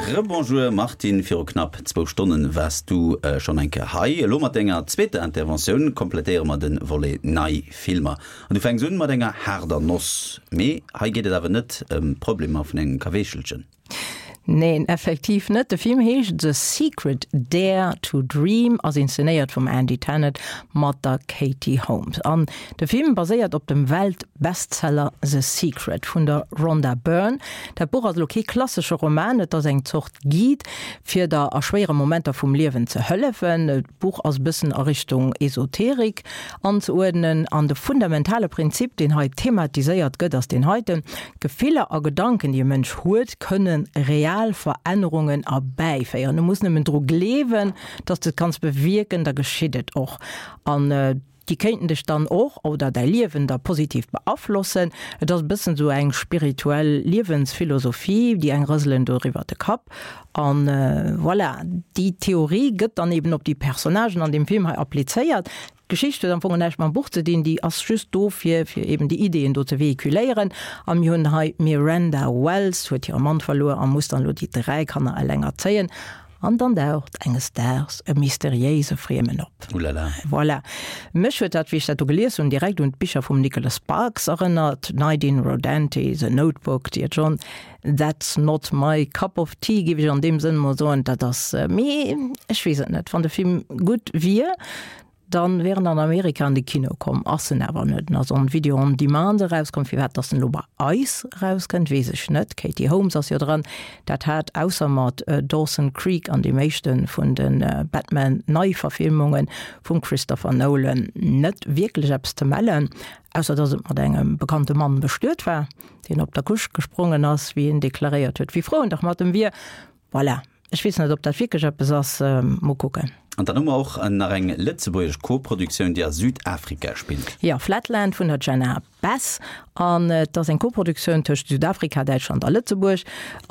Rebonjour Martine, viru knapp zwou Stonnen waars du schonn eng Kéier hei. Elo mat denger zweeter Interventioun komplettéiere mer de Volet nei Filmer. An du fänks un mat enger haarder Noss. Mee hei geet et awer net ëm d'Problemer vun engem Kaweechelchen. Neen, effektiv net. De Film heescht The Secret, Dare to Dream, ass inszenéiert vum Andy Tennant mat der Katie Holmes. An de Film baséiert op dem Welt-Bestseller The Secret vun der Rhonda Byrne. Dat Buch ass elo kee klassesche Roman, et ass eng Zort Guide, fir der a schwéiere Momenter vum Liewen ze hëllefen. D'Buch ass e bëssen a Richtung Esoterik anzeuerdnen an de fundamentale Prinzip, deen hei thematiséiert gëtt, ass deen heiten, Gefiller a Gedanken, déi e Mënsch huet, kënne real Verännerungen erbäiféieren. Du muss nëmmen dru gleewen, dass de et kanns bewierken, da geschitt et och. An déi kéinten dech dann och oder däi Liewen da positiv beaflossen. Et ass e bëssen esou eng spirituell Liewensphilosophie, déi eng rëselen doriwwer de Kapp. An voilà, déi Theorie gëtt dann eben op déi Personnagen an deem Film hei applizéiert. D'Geschicht huet am Fong näischt mam Buch ze dinn, déi ass just do fir fir eben déi Ideeën do ze véhiculéieren. A mir hunn hei d'Miranda Wells huet hire Mann verluer a muss dann elo déi 3 Kanner eleng erzéien. An dann daucht enges Daags e mysteriéise Friemen op. Oulala. Voilà. Mech huet dat, wéi ech dat do gelies hunn, direkt un d'Bicher vum Nicholas Sparks erënnert, Night in Rodanthe, The Notebook, Dear John, That's not my cup of tea, géif ech an deem Sënn mol soen. Dat ass, mee ech weess et net. Wann de Film gutt wier, dann wier en an Amerika an de Kino komm. Ass en awer net. En ass on Video on Demand erauskomm. Firwat dass en elo bei eis erauskënnt, weess ech net. D'Katie Holmes ass jo dran. Dat hat ausser mat Dawson Creek an deem éischte vun de Batman-Neiverfilmunge vum Christopher Nolan net wierklech eppes ze mellen, ausser dass et mat engem bekannte Mann bestuet war. deen op der Couche gesprongen ass, wéi en deklaréiert huet, wéi frou en dach mat em wier. Voilà. Ech weess net, ob dat wierklech eppes ass. Mol kucken. An dann hu mer och nach eng lëtzebuergesch Koproduktioun, déi a Südafrika spillt. Jo, Flatland vun der Jenna Bess. An et ass eng Koproduktioun tëscht Südafrika, Däitschland a Lëtzebuerg.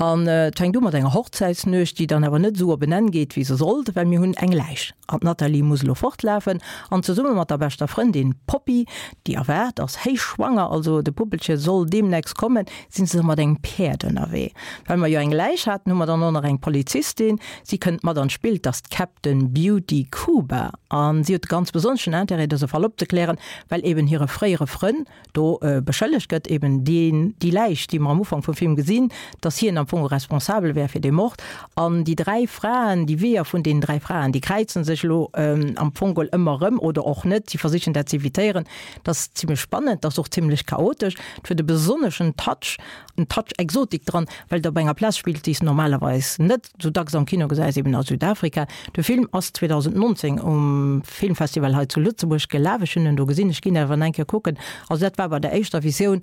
An et fänkt u mat enger Hochzäitsnuecht, déi dann awer net esou op en Enn geet, wéi se sollt, well mir hunn eng Läich. An d'Nathalie muss elo fortlafen an zesumme mat der beschter Frëndin Poppy, déi erwaart ass, héichschwanger, also de Puppelche soll deemnächst kommen, sinn se mat engem Päerd ënnerwee. Well mer jo eng Läich haten, hu mer dann och nach eng Polizistin. Si kënnt mat an d'Spill, 't ass d'Captain Beauty Kuba an si huet de ganz besonneschen Intérêt, dëse Fall opzeklären, well eben hire fréiere Frënn do beschëllegt gëtt, eben deen, déi Läich, déi mer am Ufank vum Film gesinn, dass hien am Fong responsabel wär fir dee Mord. An déi 3 Fraen, déi Weeër vun deenen 3 Fraen, déi kräize sech elo am Fong geholl ëmmer erëm oder och net, si versichen dat z'evitéieren. Dat ass zimlech spannend, dat ass och zimlech chaotesch. Et huet e besonneschen Touch, en Touch Exotik dran, well et op enger Plaz spillt, déi s de normalerweis net sou dacks am Kino gesäis, eben a Südafrika. De Film ass 2019 um Filmfestival hei zu Lëtzebuerg gelaf. Ech hunn en do gesinn, ech ginn awer nach eng Kéier kucken. Also dat war bei der éischter Visioun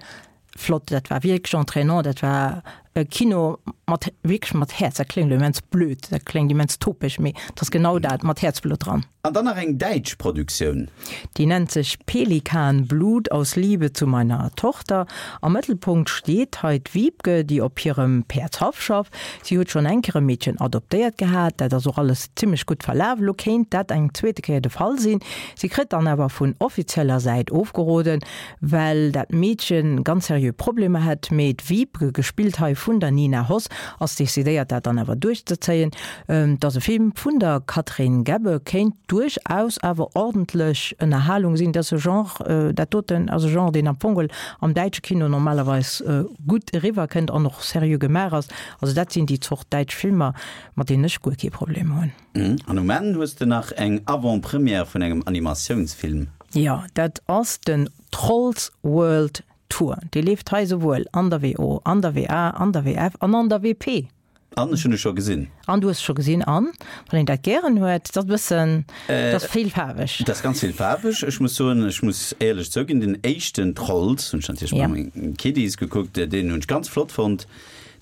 flott, dat war wierklech entraînant, dat war e Kino mat wierklech mat Häerz. Dat kléngt elo immens blöd, dat kléngt immens topeg, mee et ass genau dat, mat Häerzblutt dran. An dann nach eng däitsch Produktioun. Déi nennt sech Pelikanblut aus Liebe zu meiner Tochter. Am Mëttelpunkt steet hei d'Wiebke, déi op hirem Päerdshaff schafft. Si huet schonn eng Kéier e Meedchen adoptéiert gehat, dat ass och alles zimmlech gutt verlaf. Elo kéint dat eng zweete Kéier de Fall sinn. Si kritt dann awer vun offizieller Säit ofgeroden, well dat Meedchen ganz seriö Problemer hätt. Mee d'Wiebke, gespillt hei vun der Nina Hoss, ass decidéiert dat dann awer duerchzezéien. Et ass e Film vun der Catherine Gebbe, kéint duerchaus awer ordentlech Ënnerhalung sinn. Dat ass e Genre, dat doten ass e Genre, deen am Fong am däitsche Kino normalerweis gutt eriwwer kënnt an och seriö gemaach ass. Also dat sinn déi Zort däitsch Filmer, mat deenen ech guer kee Problem hunn. An um Enn hues de nach eng Avant-Première vun engem Animatiounsfilm. Jo, dat ass den Trolls World Tour. Dee leeft hei souwuel an der WO, an der WA, an der WF an an der WP. An ech hunn e scho gesinn. An du hues e scho gesinn. An wann een dat gären huet, dat ass e bëssen, dat ass villfaarweg. Dat ass ganz villfaarweg. Ech muss soen, ech muss éierlech zouginn, den éischten Trolls hunn ech natierlech mat mengen Kiddies gekuckt, deen hunn ech ganz flott fonnt.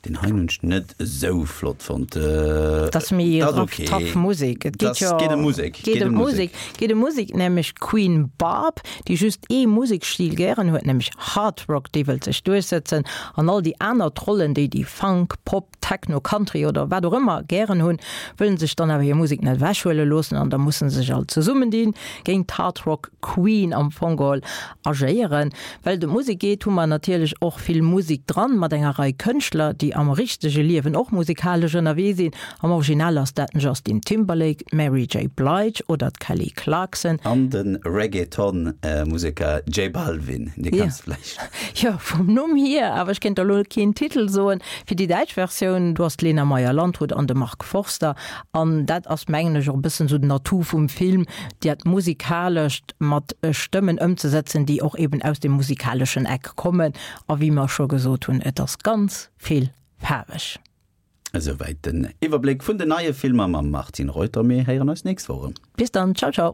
Deen heien hunn ech net esou flott fonnt. Dat ass méi rough, tough Musek. Et geet jo. Geet ëm Musek. Geet ëm Musek. Geet ëm Musek, nämlech d'Queen Barb, déi just ee Musekstil gären huet, nämlech Hard Rock, déi wëllt sech duerchsëtzen an all déi aner Trollen, déi déi Funk, Pop, Techno, Country oder wat och ëmmer gären hunn, wëllen sech dann awer hir Musek net ewechhuele loossen an da musse se sech all zesummendinn, géint d'Hard Rock Queen am Fong geholl agéieren. Well et ëm Musek geet, hu mer natierlech och vill Musek dran, mat enger Rei Kënschtler, déi. déi am richtege Liewen och musikalesch ënnerwee sinn. Am Original ass dat den Justin Timberlake, d'Mary J. Blige oder d'Kelly Clarkson. An de Reggaeton-Museker J Balvin, dee kenns de vläicht. Jo, vum Numm hier, awer ech kéint der elo keen Titel soen. Fir déi däitsch Versioun, do ass d'Lena Meyer-Landrut an de Mark Forster. An dat ass, mengen ech, och e bëssen esou den Atout vum Film, dat Musikalescht mat Stëmmen ëmzesetzen, déi och eben aus dem musikaleschen Eck kommen. A wéi mer scho gesot hunn, et ass ganz vill faarweg. Esouwäit den Iwwerbléck vun den neie Filmer mam Martine Reuter. Mir héieren eis nächst Woch erëm. Bis dann, ciao ciao.